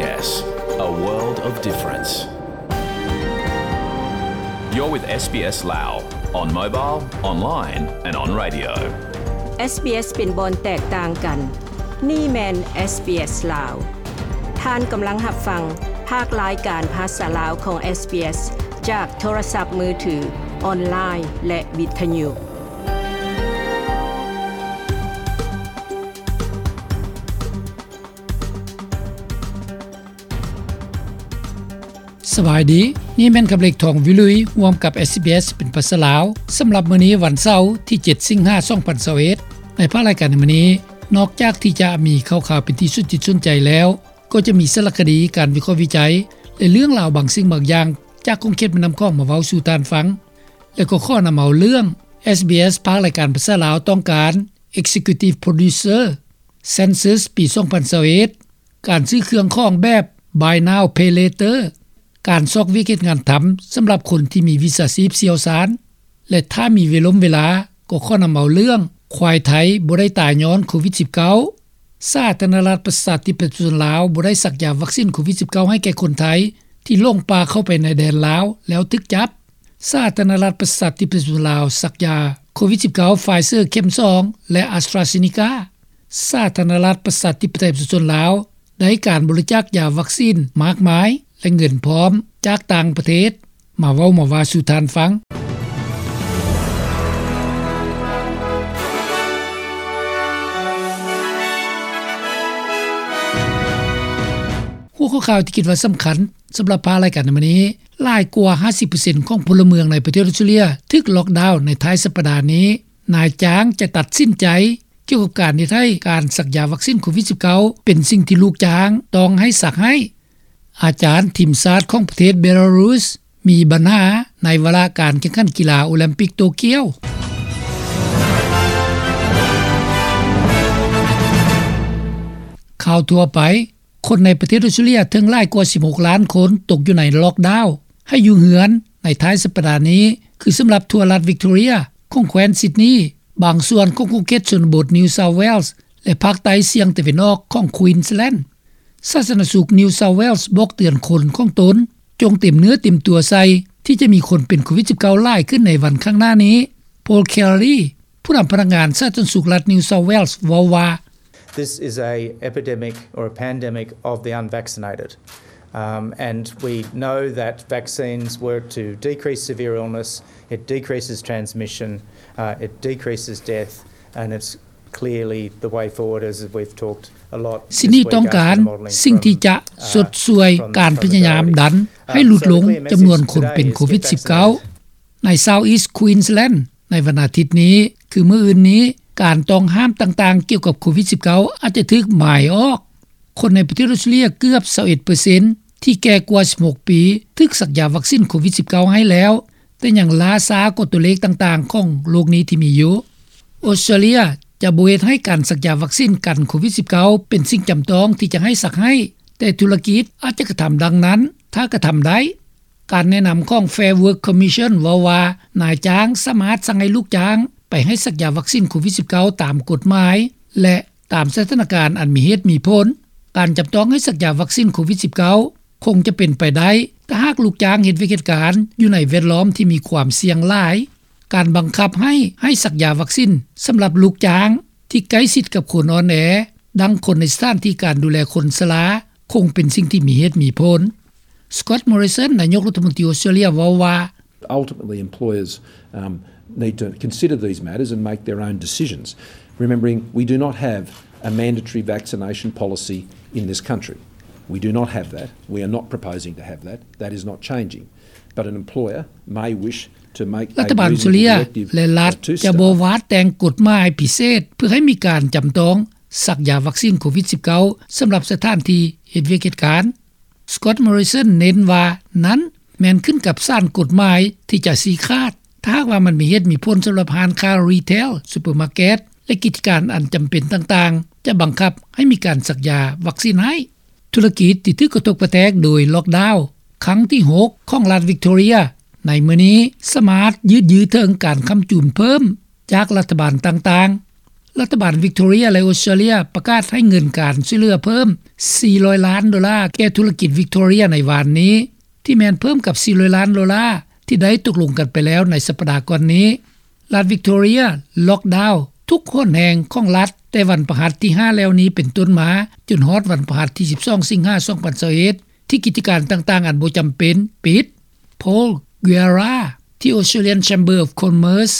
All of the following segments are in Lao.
SBS, a world of difference. You're with SBS Lao on mobile, online and on radio. SBS ເປັນບ່ອນແຕກຕ່າງກັນ. ນີ້ແມ່ນ SBS ລາວ. ທ່ານກຳລັງຮັບຟັງພາກລາຍການພາສາລາວຂອງ SBS ຈາກໂທລະສັບມືຖື, ອອນລາຍ ແລະ ວິທະຍຸ. ສະບາຍດີ, ນີ້ແມ່ນຄຳເລັກ ທອງວິລຸຍ ຮ່ວມກັບ SBS ເປັນພາສາລາວ. ສຳລັບມື້ນີ້ວັນເສົາ ທີເຈັດ ສິງຫາ ສອງພັນຊາວເອັດ. ໃນພາກລາຍການໃນມື້ນີ້, ນອກຈາກທີ່ຈະມີຂ່າວໆເປັນທີ່ສົນຈິດສົນໃຈແລ້ວ, ກໍຈະມີສາລະຄະດີ, ການວິເຄາະວິໄຈ ແລະ ເລື່ອງລາວບາງສິ່ງບາງຢ່າງ ຈາກຂົງເຂດແມ່ນ້ຳຂອງມາເວົ້າສູ່ທ່ານຟັງ ແລະ ກໍຂໍນຳເອົາເລື່ອງ SBS ພາກລາຍການພາສາລາວຕ້ອງການ Executive Producer Census ປີສອງພັນຊາວເອັດ ການຊື້ເຄື່ອງຂອງແບບ Buy Now Pay Later ການຊອກວຽກເຮັດງານທຳສຳລັບຄົນທີ່ມີວິຊາຊີບຊ່ຽວຊານ ແລະ ຖ້າມີເວລົມເວລາ ກໍຂໍນຳເອົາເລື່ອງ ຄວາຍໄທບໍ່ໄດ້ຕາຍຍ້ອນໂຄວິດສິບເກົ້າ, ສາທາລະນະລັດປະຊາທິປະໄຕປະຊາຊົນລາວບໍ່ໄດ້ສັກຢາວັກຊີນໂຄວິດສິບເກົ້າໃຫ້ແກ່ຄົນໄທທີ່ຫຼົງປ່າເຂົ້າໄປໃນແດນລາວແລ້ວຖືກຈັບ, ສາທາລະນະລັດປະຊາທິປະໄຕປະຊາຊົນລາວສັກຢາໂຄວິດສິບເກົ້າ Pfizer ເຂັມສອງ ແລະ AstraZeneca, ສາທາລະນະລັດປະຊາທິປະໄຕປະຊາຊົນລາວ ໄດ້ການບໍລິຈາກຢາວັກຊີນມາກມາຍ ແລະ ເງິນພ້ອມຈາກຕ່າງປະເທດ ມາເວົ້າມາວ່າສູ່ທ່ານຟັງ. ຫົວຂໍ້ຂ່າວທີ່ຄິດວ່າສຳຄັນສຳລັບພາກລາຍການໃນມື້ນີ້, ຫຼາຍກວ່າຫ້າສິບເປີເຊັນຂອງພົນລະເມືອງໃນປະເທດອອສເຕຣເລຍຖືກລັອກດາວໃນທ້າຍສັບປະດານີ້. ນາຍຈ້າງຈະຕັດສິນໃຈ ກ່ຽວກັບການເຮັດໃຫ້ການສັກຢາວັກຊີນໂຄວິດສິບເກົ້າ ເປັນສິ່ງທີ່ລູກຈ້າງຕ້ອງໃຫ້ສັກໃຫ້. ອາຈານທີມຊາດຂອງປະເທດເບລາຣຸສ ມີບັນຫາໃນວາລະການແຂ່ງຂັນກິລາໂອລິມປິກໂຕກຽວ. ຂ່າວທົ່ວໄປ, ຄົນໃນປະເທດອອສເຕຣເລຍເຖິງຫຼາຍກວ່າສິບຫົກລ້ານຄົນຕົກຢູ່ໃນລັອກດາວໃຫ້ຢູ່ເຮືອນໃນທ້າຍສັບປະດານີ້ ຄືສຳລັບທົ່ວລັດວິກຕໍເຣຍຂອງແຄວ້ນຊິດນີ, ບາງສ່ວນຂອງຂົງເຂດຊົນນະບົດ New South Wales ແລະ ພາກໃຕ້ສ່ຽງຕາເວັນອອກຂອງ Queensland. ສາທາລະນະສຸກ New South Wales ບອກເຕືອນຄົນຂອງຕົນ ຈົ່ງເຕັມເນື້ອເຕັມຕົວໃສ່ທີ່ຈະມີຄົນເປັນໂຄວິດສິບເກົ້າຫຼາຍຂຶ້ນໃນວັນຂ້າງໜ້ານີ້. Paul Kelly ຜູ້ນຳພະນັກງານສາທາລະນະສຸກລັດ New South Wales ເວົ້າວ່າ, This is a epidemic or a pandemic of the unvaccinated. Um, and we know that vaccines work to decrease severe illness, it decreases transmission, uh, it decreases death, and it's clearly the way forward, as we've talked a lot this week after the modelling from, uh, from the Victoria Health Service. ຊິດນີຕ້ອງການສິ່ງທີ່ຈະຊົດຊ່ວຍການພະຍາຍາມດັນໃຫ້ຫຼຸດລົງຈຳນວນຄົນເປັນໂຄວິດສິບເກົ້າ ໃນ South East Queensland ໃນວັນອາທິດນີ້ ຄືມື້ອື່ນນີ້, ການຕ້ອງຫ້າມຕ່າງໆກ່ຽວກັບໂຄວິດສິບເກົ້າອາດຈະຖືກໝາຍອອກ. ຄົນໃນປະເທດອອສເຕຣເລຍເກືອບຊາວເອັດເປີເຊັນທີ່ແກ່ກວ່າສິບຫົກປີ ຖືກສັກຢາວັກຊີນໂຄວິດສິບເກົ້າໃຫ້ແລ້ວ, ແຕ່ຍັງລ້າຊ້າກວ່າຕົວເລກຕ່າງໆຂອງໂລກນີ້ທີ່ມີຢູ່. ອອສເຕຣເລຍຈະບໍ່ເຮັດໃຫ້ການສັກຢາວັກຊີນກັນໂຄວິດສິບເກົ້າເປັນສິ່ງຈຳຕ້ອງທີ່ຈະໃຫ້ສັກໃຫ້, ແຕ່ທຸລະກິດອາດຈະກະທຳດັ່ງນັ້ນ ຖ້າກະທຳໄດ້. ການແນະນຳຂອງ Fair Work Commission ເວົ້າວ່າ ນາຍຈ້າງສາມາດສັ່ງໃຫ້ລູກຈ້າງໄປໃຫ້ສັກຢາວັກຊີນໂຄວິດສິບເກົ້າຕາມກົດໝາຍ ແລະ ຕາມສະຖານະການອັນມີເຫດມີຜົນ. ການຈຳຕ້ອງໃຫ້ສັກຢາວັກຊີນໂຄວິດສິບເກົ້າຄົງຈະເປັນໄປໄດ້ ຖ້າຫາກລູກຈ້າງເຮັດວຽກເຮັດການຢູ່ໃນແວດລ້ອມທີ່ມີຄວາມສ່ຽງຫຼາຍ. ການບັງຄັບໃຫ້ ໃຫ້ສັກຢາວັກຊີນສຳລັບລູກຈ້າງທີ່ໃກ້ຊິດກັບຄົນອ່ອນແອ, ດັ່ງຄົນໃນສະຖານທີ່ການດູແລຄົນຊະລາ, ຄົງເປັນສິ່ງທີ່ມີເຫດມີຜົນ. Scott Morrison ນາຍົກລັດຖະມົນຕີອອສເຕຣເລຍເວົ້າວ່າ, Ultimately, employers, um, need to consider these matters and make their own decisions. Remembering, we do not have a mandatory vaccination policy in this country. We do not have that. We are not proposing to have that. That is not changing. But an employer may wish to make a reasonable directive to staff. ລັດຖະບານອອສເຕຣເລຍ ແລະ ລັດຈະບໍ່ວາດແຕ່ງກົດໝາຍພິເສດເພື່ອໃຫ້ມີການຈຳຕ້ອງສັກຢາວັກຊີນໂຄວິດສິບເກົ້າ ສຳລັບສະຖານທີ່ເຮັດວຽກເຮັດການ. Scott Morrison ເນັ້ນວ່ານັ້ນແມ່ນຂຶ້ນກັບສານກົດໝາຍທີ່ຈະຊີ້ຂາດ, ຖ້າຫາກວ່າມັນມີເຫດມີຜົນສຳລັບຮ້ານຄ້າ retail, supermarket ແລະ ກິດຈະການອັນຈຳເປັນຕ່າງໆ ຈະບັງຄັບໃຫ້ມີການສັກຢາວັກຊີນໃຫ້. ທຸລະກິດທີ່ຖືກກະທົບກະແທກໂດຍລັອກດາວຄັ້ງທີຫົກຂອງລັດວິກຕໍເຣຍໃນມື້ນີ້ ສາມາດຢືດເຍື້ອເຖິງການຄ້ຳຈູນເພີ່ມຈາກລັດຖະບານຕ່າງໆ. ລັດຖະບານວິກໂຕເຣຍ ແລະ ອອສເຕຣເລັຽ ປະກາດໃຫ້ເງິນການຊ່ວຍເຫຼືອເພີ່ມ ສີ່ຮ້ອຍລ້ານໂດລາ ແກ່ທຸລະກິດວິກໂຕເຣຍໃນວານນີ້ ທີ່ແມ່ນເພີ່ມກັບ ສີ່ຮ້ອຍລ້ານໂດລາ ທີ່ໄດ້ຕົກລົງກັນໄປແລ້ວໃນສັບປະດາກ່ອນນີ້. ລັດວິກໂຕເຣຍ ລ໊ອກດາວທຸກຫົນແຫ່ງຂອງລັດ ແຕ່ວັນພະຫັດທີຫ້າແລ້ວນີ້ເປັນຕົ້ນມາ ຈົນຮອດວັນພະຫັດທີສິບສອງ ສິງຫາ ສອງພັນຊາວເອັດ ທີ່ກິດຈະການຕ່າງໆອັນບໍ່ຈຳເປັນປິດ. Paul Guerra ທີ່ Australian Chamber of Commerce.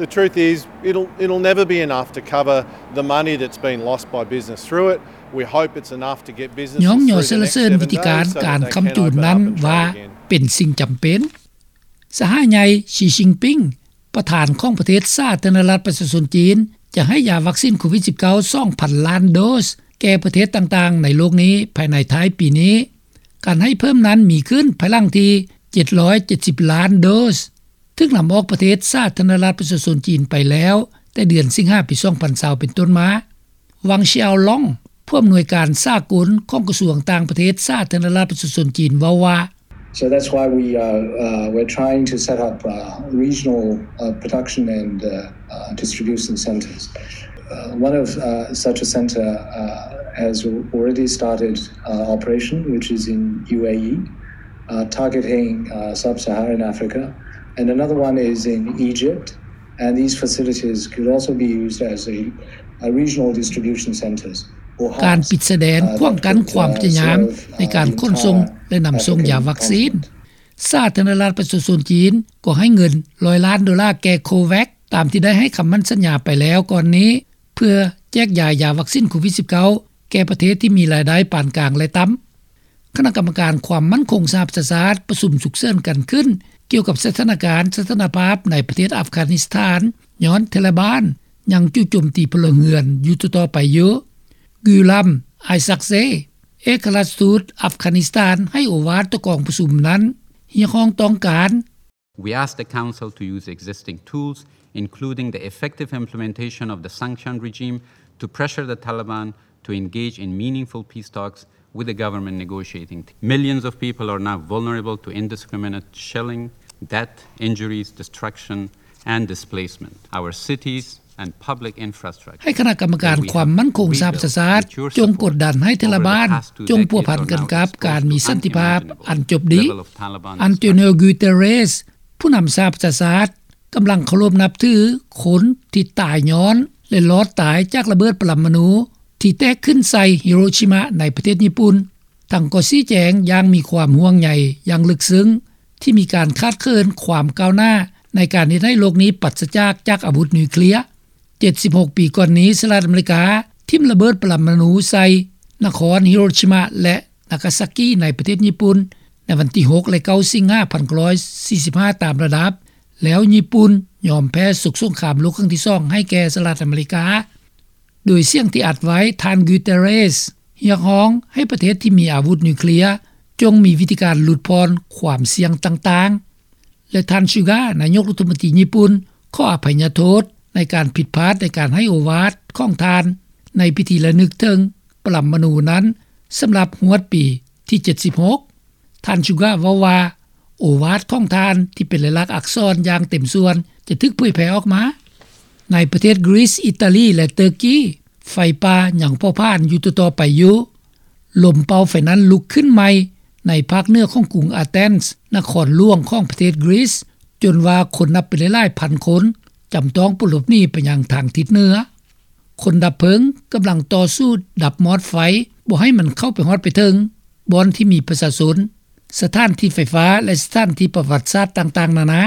The truth is, it'll, it'll never be enough to cover the money that's been lost by business through it. We hope it's enough to get businesses through the next seven days so that they can open up and trade again. ຍ້ອງຍໍສະເຫຼີນວິທີການການຄ້ຳຈູນນັ້ນວ່າເປັນສິ່ງຈຳເປັນ. ສະຫາຍໃຫຍ່ ຊີ ຊິງປິງ ປະທານຂອງປະເທດສາທາລະນະລັດປະຊາຊົນຈີນ ຈະໃຫ້ຢາວັກຊີນໂຄວິດສິບເກົ້າ ສອງພັນລ້ານໂດສ ແກ່ປະເທດຕ່າງໆໃນໂລກນີ້ພາຍໃນທ້າຍປີນີ້. ການໃຫ້ເພີ່ມນັ້ນມີຂຶ້ນພາຍຫຼັງທີ່ ເຈັດຮ້ອຍເຈັດສິບລ້ານໂດສ ຖືກນຳອອກປະເທດສາທາລະນະລັດປະຊາຊົນຈີນໄປແລ້ວ ແຕ່ເດືອນສິງຫາ ປີ ສອງພັນຊາວ ເປັນຕົ້ນມາ. ວັງ ຊຽວລອງ ຜູ້ອຳນວຍການສາກົນຂອງກະຊວງຕ່າງປະເທດສາທາລະນະລັດປະຊາຊົນຈີນ ເວົ້າວ່າ. So that's why we are, uh, we're trying to set up, uh, regional, uh, production and, uh, uh, distribution centers. Uh, one of, uh, such a center, uh, has already started, uh, operation, which is in U A E, uh, targeting, uh, sub-Saharan Africa. And another one is in Egypt. And these facilities could also be used as a, a regional distribution centers. ການປິດຊາຍແດນຂວາງກັ້ນຄວາມພະຍາຍາມໃນການຂົນສົ່ງ ແລະ ນຳສົ່ງຢາວັກຊີນ. ສາທາລະນະລັດປະຊາຊົນຈີນກໍໃຫ້ເງິນຮ້ອຍລ້ານໂດລາແກ່ COVAX ຕາມທີ່ໄດ້ໃຫ້ຄຳໝັ້ນສັນຍາໄປແລ້ວກ່ອນນີ້ ເພື່ອແຈກຢາຍຢາວັກຊີນໂຄວິດສິບເກົ້າ ແກ່ປະເທດທີ່ມີລາຍໄດ້ປານກາງ ແລະ ຕ່ຳ. ຄະນະກຳມະການຄວາມໝັ້ນຄົງສະຫະປະຊາຊາດປະຊຸມສຸກເສີນກັນຂຶ້ນ ກ່ຽວກັບສະຖານະການສະຖານະພາບໃນປະເທດອັຟການິສຖານ ຍ້ອນທາລະບານຍັງຈູ່ໂຈມຕີພົນລະເຮືອນຢູ່ຕໍ່ໆໄປຢູ່. ກາມ ໄອຊັກເຊ ເອກອັຄລັດທູດອັຟການິສຖານໃຫ້ໂອວາດຕໍ່ກອງປະຊຸມນັ້ນ ຮຽກຮ້ອງຕ້ອງການ. We ask the Council to use existing tools, including the effective implementation of the sanction regime, to pressure the Taliban to engage in meaningful peace talks with the government negotiating team. Millions of people are now vulnerable to indiscriminate shelling, death, injuries, destruction, and displacement. Our cities and public infrastructure ໃຫ້ຄະນະກຳມະການຄວາມໝັ້ນຄົງສະຫະປະຊາຊາດ ຈົງກົດດັນໃຫ້ທາລະບານ ຈົ່ງພົວພັນກັນກັບການມີສັນຕິພາບອັນຈົບດີ. ອັນໂຕນິໂອ ກູເຕເຣສ ຜູ້ນຳສະຫະປະຊາຊາດ ກຳລັງເຄົາລົບນັບຖືຄົນທີ່ຕາຍຍ້ອນ ແລະ ລອດຕາຍຈາກລະເບີດປະລະມະນູທີ່ແຕກຂຶ້ນໃສ່ຮິໂຣຊິມະໃນປະເທດຍີ່ປຸ່ນ. ທັງກໍຊີ້ແຈງຢ່າງມີຄວາມຫ່ວງໃຍຢ່າງເລິກເຊິ່ງ ທີ່ມີການຂາດເຂີນຄວາມກ້າວໜ້າໃນການເຮັດໃຫ້ໂລກນີ້ປາສຈາກ ຈາກອາວຸດນິວເຄລຍ. ເຈັດສິບຫົກປີກ່ອນນີ້ ສະຫະລັດອາເມລິກາຖິ້ມລະເບີດປະລະມະນູໃສ່ນະຄອນຮິໂຣຊິມະ ແລະ ນາກາຊາກີໃນປະເທດຍີ່ປຸ່ນ ໃນວັນທີຫົກ ແລະ ເກົ້າ ສິງຫາ ພັນເກົ້າຮ້ອຍສີ່ສິບຫ້າ ຕາມລະດັບ ແລ້ວຍີ່ປຸ່ນຍອມແພ້ສົກສົງຄາມໂລກຄັ້ງທີສອງໃຫ້ແກ່ສະຫະລັດອາເມລິກາ. ໂດຍສຽງທີ່ອັດໄວ້ ທ່ານ ກູເຕເຣສ ຮຽກຮ້ອງໃຫ້ປະເທດທີ່ມີອາວຸດນິວເຄລຍ ຈົ່ງມີວິທີການຫຼຸດຜ່ອນຄວາມສ່ຽງຕ່າງໆ ແລະ ທ່ານ ຊູກາ ນາຍົກລັດຖະມົນຕີຍີ່ປຸ່ນ ຂໍອະໄພຍະໂທດໃນການຜິດພາດໃນການໃຫ້ໂອວາດຂອງທ່ານໃນພິທີລະນຶກເຖິງປະລະມະນູນັ້ນ ສຳລັບຮວດປີທີເຈັດສິບຫົກ. ທ່ານ ຊູກາ ເວົ້າວ່າ ໂອວາດຂອງທ່ານທີ່ເປັນລາຍລັກອັກສອນຢ່າງເຕັມສ່ວນຈະຖືກເຜີຍແຜ່ອອກມາ. ໃນປະເທດກຣີສ, ອີຕາລີ ແລະ ເຕີກີ ໄຟປ່າຍັງເຜົາຜານຢູ່ຕໍ່ໆໄປຢູ່. ລົມເປົ່າໄຟນັ້ນລຸກຂຶ້ນໃໝ່ໃນພາກເໜືອຂອງກຸງອາເທນສ໌ ນະຄອນຫຼວງຂອງປະເທດກຣີສ ຈົນວ່າຄົນນັບເປັນຫຼາຍໆພັນຄົນຈຳຕ້ອງປົນຫຼົບໜີໄປຍັງທາງທິດເໜືອ. ຄົນດັບເພີງກຳລັງຕໍ່ສູ້ດັບມອດໄຟບໍ່ໃຫ້ມັນເຂົ້າໄປຮອດໄປເຖິງບ່ອນທີ່ມີປະຊາຊົນ, ສະຖານທີ່ໄຟຟ້າ ແລະ ສະຖານທີ່ປະຫວັດສາດຕ່າງໆນານາ.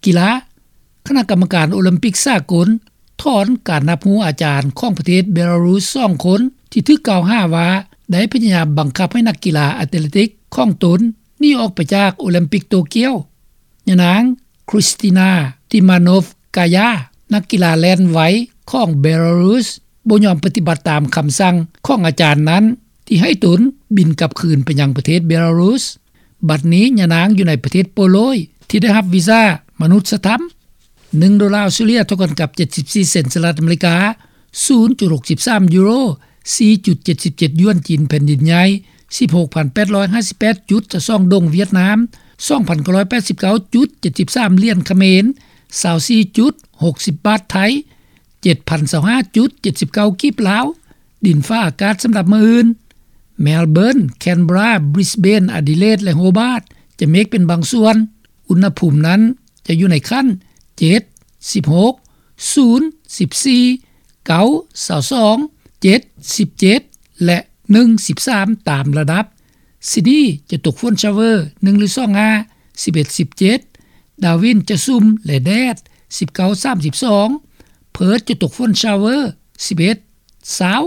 ກິລາ. ຄະນະກຳມະການໂອລິມປິກສາກົນຖອນການຮັບຮູ້ອາຈານຂອງປະເທດເບລາຣຸສສອງຄົນ ທີ່ຖືກກ່າວຫາວ່າໄດ້ພະຍາຍາມບັງຄັບໃຫ້ນັກກິລາແອດເລຕິກຂອງຕົນໜີອອກໄປຈາກໂອລິມປິກໂຕກຽວ. ຍານາງ Kristina Timanov-Kaya ນັກກິລາແລ່ນໄວຂອງເບລາຣຸສ ບໍ່ຍອມປະຕິບັດຕາມຄຳສັ່ງຂອງອາຈານນັ້ນ ທີ່ໃຫ້ຕົນບິນກັບຄືນໄປຍັງປະເທດເບລາຣຸສ. ບັດນີ້ຍານາງຢູ່ໃນປະເທດໂປໂລຍ ທີ່ໄດ້ຮັບວີຊາມະນຸດສະທຳ. ໜຶ່ງໂດລາອອສເຕຣເລັຽເທົ່າກັນກັບເຈັດສິບສີ່ເຊັນສະຫະລັດອາເມລິກາ, ສູນຈຸດຫົກສິບສາມຢູໂຣ, ສີ່ຈຸດເຈັດສິບເຈັດຢວນຈີນແຜ່ນດິນໃຫຍ່, ສິບຫົກພັນແປດຮ້ອຍຫ້າສິບແປດຈຸດຊາວສອງດົງຫວຽດນາມ, ສອງພັນເກົ້າຮ້ອຍແປດສິບເກົ້າຈຸດເຈັດສິບສາມຫຼຽນຂະເໝນ, ຊາວສີ່ຈຸດຫົກສິບບາດໄທ, ເຈັດພັນຊາວຫ້າຈຸດເຈັດສິບເກົ້າກີບລາວ. ດິນຟ້າອາກາດສຳລັບມື້ອື່ນ: ແມລເບີນ, ແຄນເບຣາ, ບຣິສເບນ, ອາດີເລດ ແລະ ໂຮບາດ ຈະເມກເປັນບາງສ່ວນ. ອຸນຫະພູມນັ້ນຈະຢູ່ໃນຂັ້ນ ເຈັດ, ສິບຫົກ, ສູນ, ສິບສີ່, ເກົ້າ, ຊາວສອງ, ເຈັດ, ສິບເຈັດ ແລະ ໜຶ່ງ, ສິບສາມ ຕາມລະດັບ. ຊິດນີຈະຕົກຝົນຊາວເວີ ໜຶ່ງ ຫຼື ສອງ ຫ້າ, ສິບເອັດ ສິບເຈັດ. ດາວິນຈະຊຸ່ມ ແລະ ແດດ ສິບເກົ້າ ສາມສິບສອງ. ເພີດຈະຕົກຝົນຊາວເວີ ສິບເອັດ ຊາວ.